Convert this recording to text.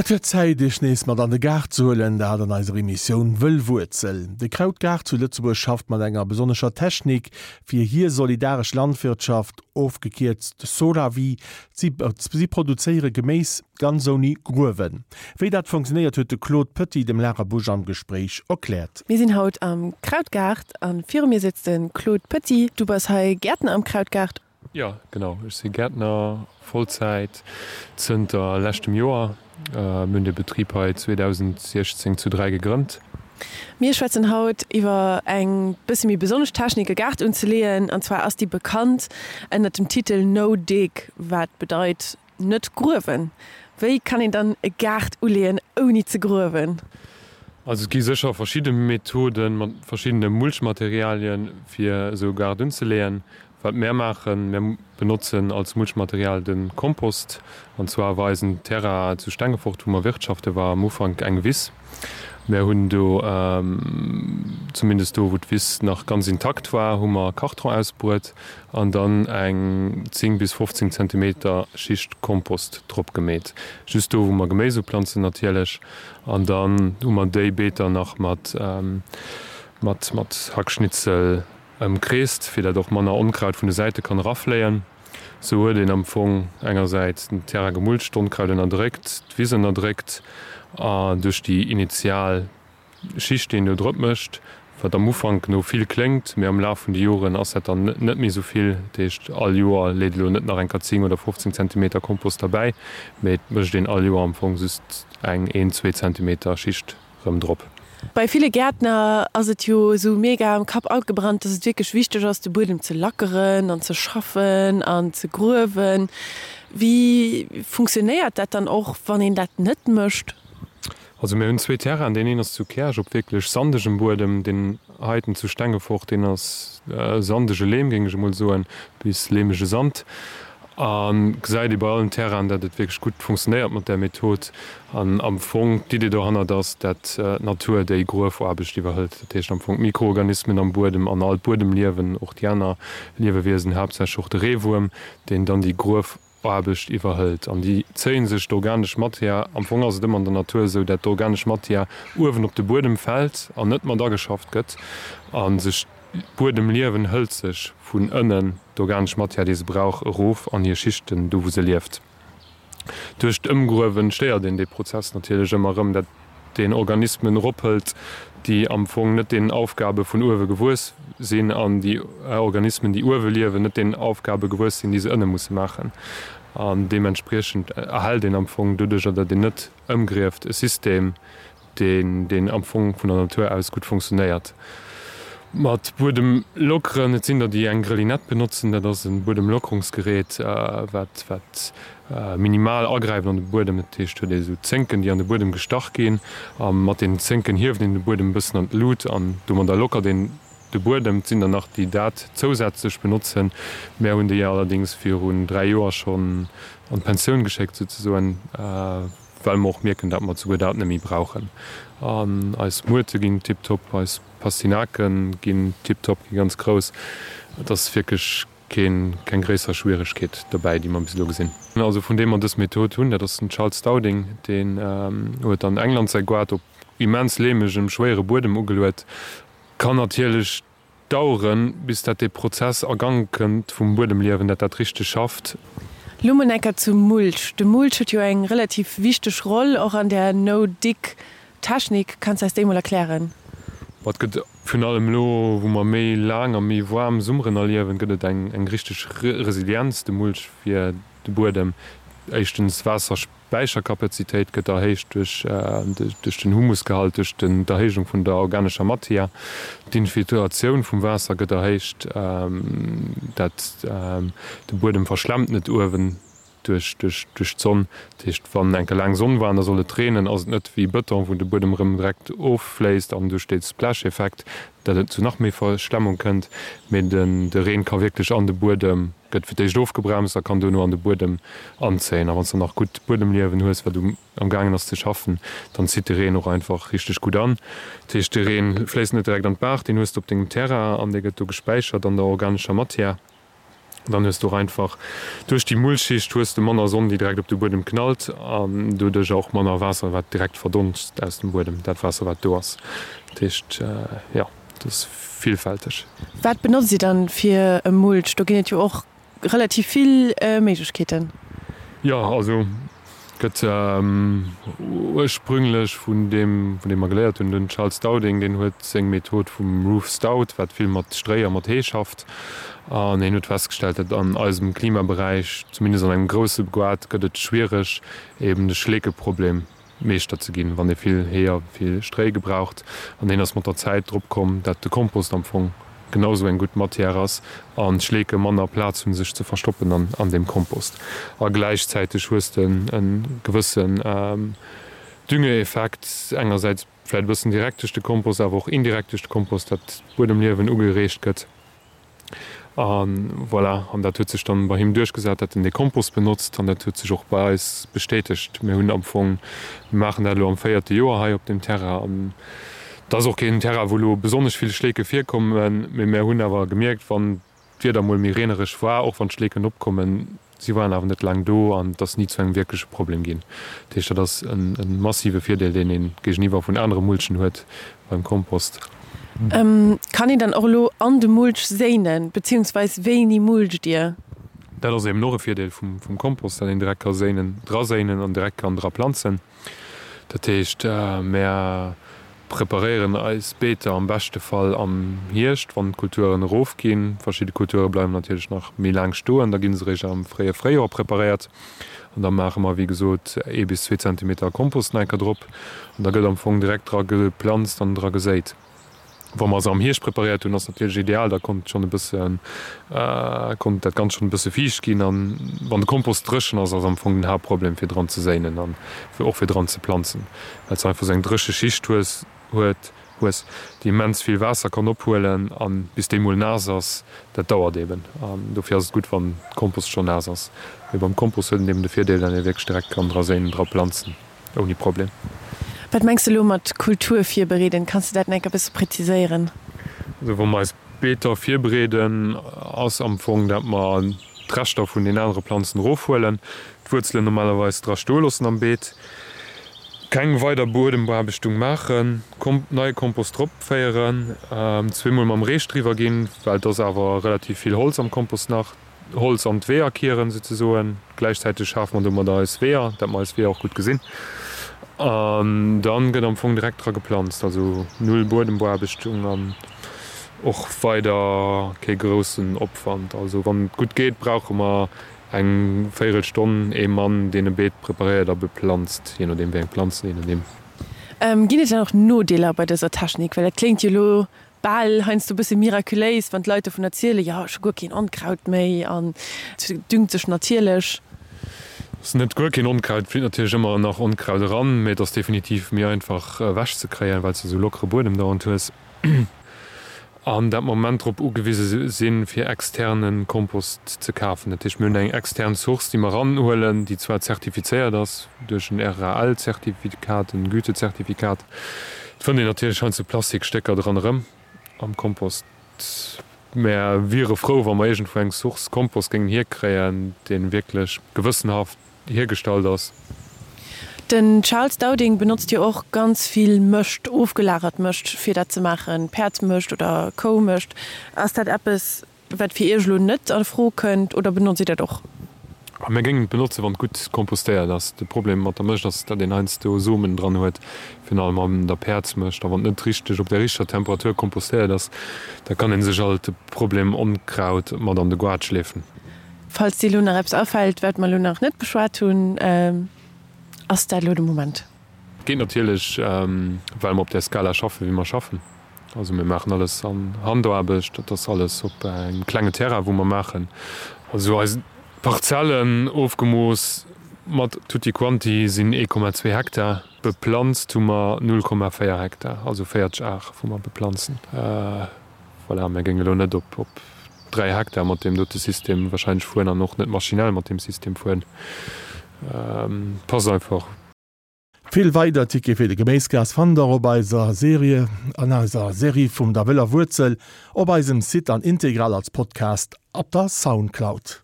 Et gëtt Zäit, Iech nees mat an de Gaart ze huelen, dat an eiser Emissioun Wëllwuerzel. De Krautgaart zu Lëtzebuerg schafft mat enger besonnescher Technik fir hir solidaresch Landwirtschaft, ofgekierzt Solawi. Si produzéiere Geméis ganz ouni Gruewen. Wéi dat funktionéiert, huet de Claude Petit dem Lara Busch am Gespréich erkläert. Mir sinn haut am Krautgaart a viru mir sëtzt de Claude Petit. Du bass hei Gäertner am Krautgaart. Jo, genau. Ech si Gäertner, Vollzäit, zënter leschtem Joer. Mir hunn de Betrib hei 2016 zu 3 gegrënnt. Mir schwätzen haut iwwer eng bësse méi besonnesch Technik e Gaart unzeleeën. An zwar ass déi bekannt ënnert dem Titel No Dig, wat bedeit net gruewen. Wéi kann een dann e Gaart uleeën ouni ze gruewen? Also et gi sécher verschidde Methoden mat verschiddene Mulchmaterialien fir esou e Gaart unzeleeën. Wat mär maachen, mär benotzen als Mulchmaterial de Kompost. An zwar war eisen Terrain zu Stengefort, wou mer wirtschaften, war am Ufank eng Wiss. Mär hunn do, zumindest do wou d'Wiss nach ganz intakt war, hu mer Karton ausbruet an dann eng 10 bis 15 Zentimeter Schicht Kompost drop gemeet. Just do wou mer Geméis uplanzen natierlech. An dann hu mer déi Beeter nach mat mat Hackschnitzel Ëmkreest, fir dat och manner Onkraut vun de Säite kann erafléien. Sou huet een am Fong engersäits den Terrain gemulcht, d'Onkraut ënnerdréckt, d'Wiss ënnerdréckt a duerch déi initial Schicht, déi een do drop mécht, wat am Ufank no vill kléngt, mee am Laf vun de Joren ass dat dann net méi sou vill. Dat heescht, all Joer leet elo net nach eng Kéier 10 oder 15 Zentimeter Kompost derbäi, mee et mécht een all Joer am Fong just eng een, zwee Zentimeter Schicht. rëm drop. Bei ville Gäertner ass et jo esou mega am Kapp agebrannt, dass et wierklech wichteg ass, de Buedem ze lackeren an ze schaffen an ze gruewen. Wéi funktionéiert dat dann och, wann een dat net mécht? Also mir hunn zwee Terrainen, deen een ass zu Käerch op wierklech sandegem Buedem, deen heiten zu Stengefort, deen ass sandege Leem, géing ech emol soen, bis leemege Sand. A gesäit ee bei allen Terrainen, dat et wierklech gutt funktionéiert mat där Method. An am Fong d'Idee dohannert ass, dat d'Natur déi Gruefaarbecht iwwerhëlt. Dat heescht am Fong d'Mikroorganismen am Buedem an all d'Buedemliewen, och déi aner Liewewiesen, haaptsächlech och de Reewuerm, deen dann déi Gruefaarbecht iwwerhëlt. An déi zéie sech d'organesch Matière. Am Fong ass et ëmmer an der Natur esou, dat d'organesch Matière uewen op de Buedem fält an net mat ageschafft gëtt a sech D'Buedemliewen hëlt sech vun ënnen d'organesch Matière, déi se brauch, erof an hir Schichten, do wou se lieft. Duerch d'Ëmgruewen stéiert een dee Prozess natierlech ëmmer erëm, dat een Organismen erophëlt, déi am Fong net deenen Aufgabe vun uewe gewuess sinn, an déi Organismen, déi uewe liewen, net deenen Aufgabe gewuess sinn, déi se ënne musse maachen. An deementspriechend erhält een am Fong doduercher, datt een net ëmgrieft, e System, deen deen am Fong vun der Natur aus gutt funktionéiert. Mat Buedem lockeren, et sinn der déi eng Grelinette benotzen, dat ass e Buedemlockerungsgerät wat wat minimal agräift an de Buedem. Dat heescht huet ee sou Zénken déi an de Buedem gestach ginn a mat deenen Zénken hieft een de Buedem e bëssen an d'Lut an domadder lockert een de Buedem. Et sinn der nach déi dat zousätzlech benotzen, mär hunn déi allerdéngs virun 3 Joer schonn an d'Pensioun geschéckt souzesoen. Well mer och mierken, dat mer souguer dat net méi brauchen. An eis Muerte ginn tiptop, eis Pastinake ginn tiptop, gi ganz grouss. Et ass wierklech keen, keng gréisser Schwieregkeet dobäi, déi mer bis elo gesinn. Also vun deem mer dës Method hunn, dat ass den Charles Dowding, deen huet an England säi Goart op immens leemegem, schwéiere Buedem ugeluet. Kann natierlech Daueren, bis dat dee Prozess a Gang kënnt vum Buedemliewen, dat dat richteg schafft. Lo mol enker zum Mulch. De Mulch huet jo eng relativ wichteg Roll och an där No-Dig Technik. Kanns eis déi mol erklären? Ma et gëtt virun allem elo, wou mer méi laang a méi waarm Summeren erliewen, gëtt et eng eng richteg Resilienz, de Mulch fir de Buedem. Éischtens Waasser. D'Späicherkapazitéit gëtt erhéicht duerch den Humusgehalt, duerch d'Erhéijung vun der organescher Matière. D'Infiltratioun vum Waasser gëtt erhéicht, dat de Buedem verschlemmt net uewen duerch d'Sonn. Dat heescht, wann enke laang Sonn war an da soll et reenen, ass et net wéi Bëton, wou de Buedem erëm direkt offléisst an duerch dee Splash-Effekt, dat et zu nach méi Verschlemmung kënnt, mee de Reen ka wierklech an de Buedem Gëtt fir d'éischt ofgebremst a kann duerno an de Buedem anzéien. A wann s de nach gutt Buedemliewen hues, wat um am gaangen ass ze schaffen, dann zitt de Reen och einfach richteg gutt an. Dat heescht, de Reen fléisst net direkt an d'Baach, deen hues de op dengem Terrain an dee gëtt do gespäichert an der organescher Matière. Dann hues du och einfach duerch déi Mulchschicht hues de manner Sonn, déi direkt op de Buedem knallt an doduercher och manner Waasser, wat direkt verdonst aus dem Buedem, dat Waasser, wat do ass. Dat heescht, jo, dat ass villfälteg. Wat benotzt Dir dann fir e Mulch? Do ginn et jo och relativ vill Méiglechkeeten. Jo, also gëtt ursprünglech vun deem, vun deem mer geléiert hunn, den Charles Dowding, deen huet seng Method vum Roof Stout, wat vill mat Stréi a mat Hee schafft. An hien huet festgestellt, datt an eisem Klimaberäich, zumindest an engem grousse Goart, gëtt et schwiereg, eben de Schleekeproblem Meeschter ze ginn, wann ee vill Hee a vill Stréi gebraucht. An hien ass mat der Zäit drop komm, dat de Kompost am Fong genau sou eng gutt Matière ass an d'Schleeke manner Plaz hunn sech ze verstoppen an deem Kompost. A gläichzäiteg hues de e gewëssen Düngeeffekt, engersäits vläicht e bëssen direkt duerch de Kompost, awer och indirekt duerch de Kompost, dat d'Buedemliewen ugereegt gëtt. A voilà, an dat huet sech dann bei him duerchgesat, dat en dee Kompost benotzt an dat huet sech och bei eis bestätegt. Mir hunn am Fong, mir maachen dat elo am véierte Joer hei op deem Terrain an et ass och keen Terrain, wou elo besonnesch vill Schleeke virkommen, mee mir hunn awer gemierkt, wann d'Wieder mol méi reenereg war, och wann d'Schleeken opkommen, Si waren awer net laang do an et ass ni zu engem wierkleche Problem ginn. Dat heescht, dat ass e massive Virdeel, deen ee géigeniwwer vun anere Mulchen huet beim Kompost. Kann een dann och elo an de Mulch séinen, beziehungsweis wéini mulcht Dir? Dat ass eben och e Virdeel vum Kompost, dat een direkt ka séinen, dra séinen an direkt kann dra planzen. Dat heescht, mär preparéieren eis Beeter am beschte Fall am Hierscht, wann d'Kulturen erofginn. Verschidde Kulture bleiwen natierlech nach méi laang stoen, da gi se eréischt am fréie Fréijoer preparéiert. An da maache mer, wéi gesot, ee bis zwee Zentimeter Kompost nach eng Kéier drop an da gëtt am Fong direkt dra geplanzt an dra geséit. Wa mer se am Hierscht preparéiert hunn, ass natierlech ideal, da konnt schonn e bëssen, konnt dat Ganzt schonn e bësse fiicht ginn. An wann de Kompost dréchen ass, ass am Fong den Haaptproblem fir dran ze séinen an och fir dran ze planzen, well s de einfach esou eng dréche Schicht hues, huet, hues, déi immens vill Waasser kann ophuelen an bis déi mol naass ass, dat dauert eben. An dofir ass et gutt, wann de Kompost schonn naass ass. Mee beim Kompost huet en eben de Virdeel, datt ee wierklech direkt kann dra séinen, dra planzen. Ouni Problem. Wat mengs de elo mat Kultur virbereeden? Kanns de dat nach enk e bësse präziséieren? Also wa mer eis Beeter virbereeden, ass am Fong dat mer d'Reschter vun den anere Planzen erofhuelen, d'Wuerzelen normalerweis dra stoe loossen am Beet, keng weider Buedembeaarbechtung maachen, neie Kompost drop féieren, zweemol mam Reech driwwer ginn, well et ass awer relativ vill Holz am Kompost nach. Holz an d'Weeër kieren souzesoen. Gläichzäiteg schafe mer domadder eis Weeër, dat mer eis Weeër och gutt gesinn. An dann gëtt am Fong direkt dra geplanzt, also null Buedembeaarbechtung an och weider kee groussen Opwand. Also wann et gutt geet, brauche mer eng véierel Stonn ee Mann, deen e Beet preparéiert a beplanzt, jee nodeem wéi eng Planzen een en nimm. Ginn et dann och Nodeeler bei dëser Technik? Well dat kléngt jo elo bal heiansdo e bësse miraculéis, wann d'Leit dovun erzielen, jo, ech hu guer keen Onkraut méi an et düngt sech natierlech. Ass net guer keen Onkraut, et flitt natierlech ëmmer nach Onkraut eran, mee et ass definitiv méi einfach ewech ze kréien, well s de esou lockere Buedem dauernd hues an dat mer am Moment drop ugewise sinn, fir externe Kompost ze kafen. Dat heescht, mir hunn eng extern Source, déi mer eranhuelen, déi zwar zertifizéiert ass duerch en RAL-Zertifikat, en Gütezertifikat, Et fënnt een natierlech heiansdo Plastikstécker dran erëm am Kompost. Mär wiere frou, wa mer iergendwou eng Source Kompost géingen hierkréien, dee wierklech gewëssenhaft hiergestallt ass. Den Charles Dowding benotzt jo och ganz vill Mëscht, ofgelagert Mëscht, fir dat ze maachen, Päerdsmëscht oder Koumëscht. Ass dat eppes, Wat fir Iech elo net a Fro kënnt, oder benotzt Dir dat och? Mir géingen et benotzen, wann et gutt kompostéiert ass. De Problem mat der Mëscht ass, datt een heiansdo Somen dran huet, virun allem an der Päerdsmëscht. A wann et net richteg op der richteger Temperatur kompostéiert ass, da kann ee sech alt de Problem Onkraut mat an de Goart schleefen. Falls dir elo nach eppes afält, wat mer elo nach net beschwat hunn, ass dat elo de Moment. Geet natierlech, well mer op där Skala schaffen, wéi mer schaffen. Also mir maachen alles an Handaarbecht, dat ass alles op engem klenge Terrain, wou mer maachen. Also eis Parzellen, ofgemooss mat tutti quanti, sinn 1,2 Hektar. Beplanzt hu mer 0,4 Hektar, also 40 Ar, wou mer beplanzen. Voilà, mir géinge elo net op 3 Hektar mat deem dote System wahrscheinlech fueren an och net maschinell mat deem System fueren. Passt einfach. Vill weider Tickete fir de Geméisgaart fannt der op eiser Serie an eiser Serie vum der wëller Wuerzel op eisem Site an integral als Podcast op der Soundcloud.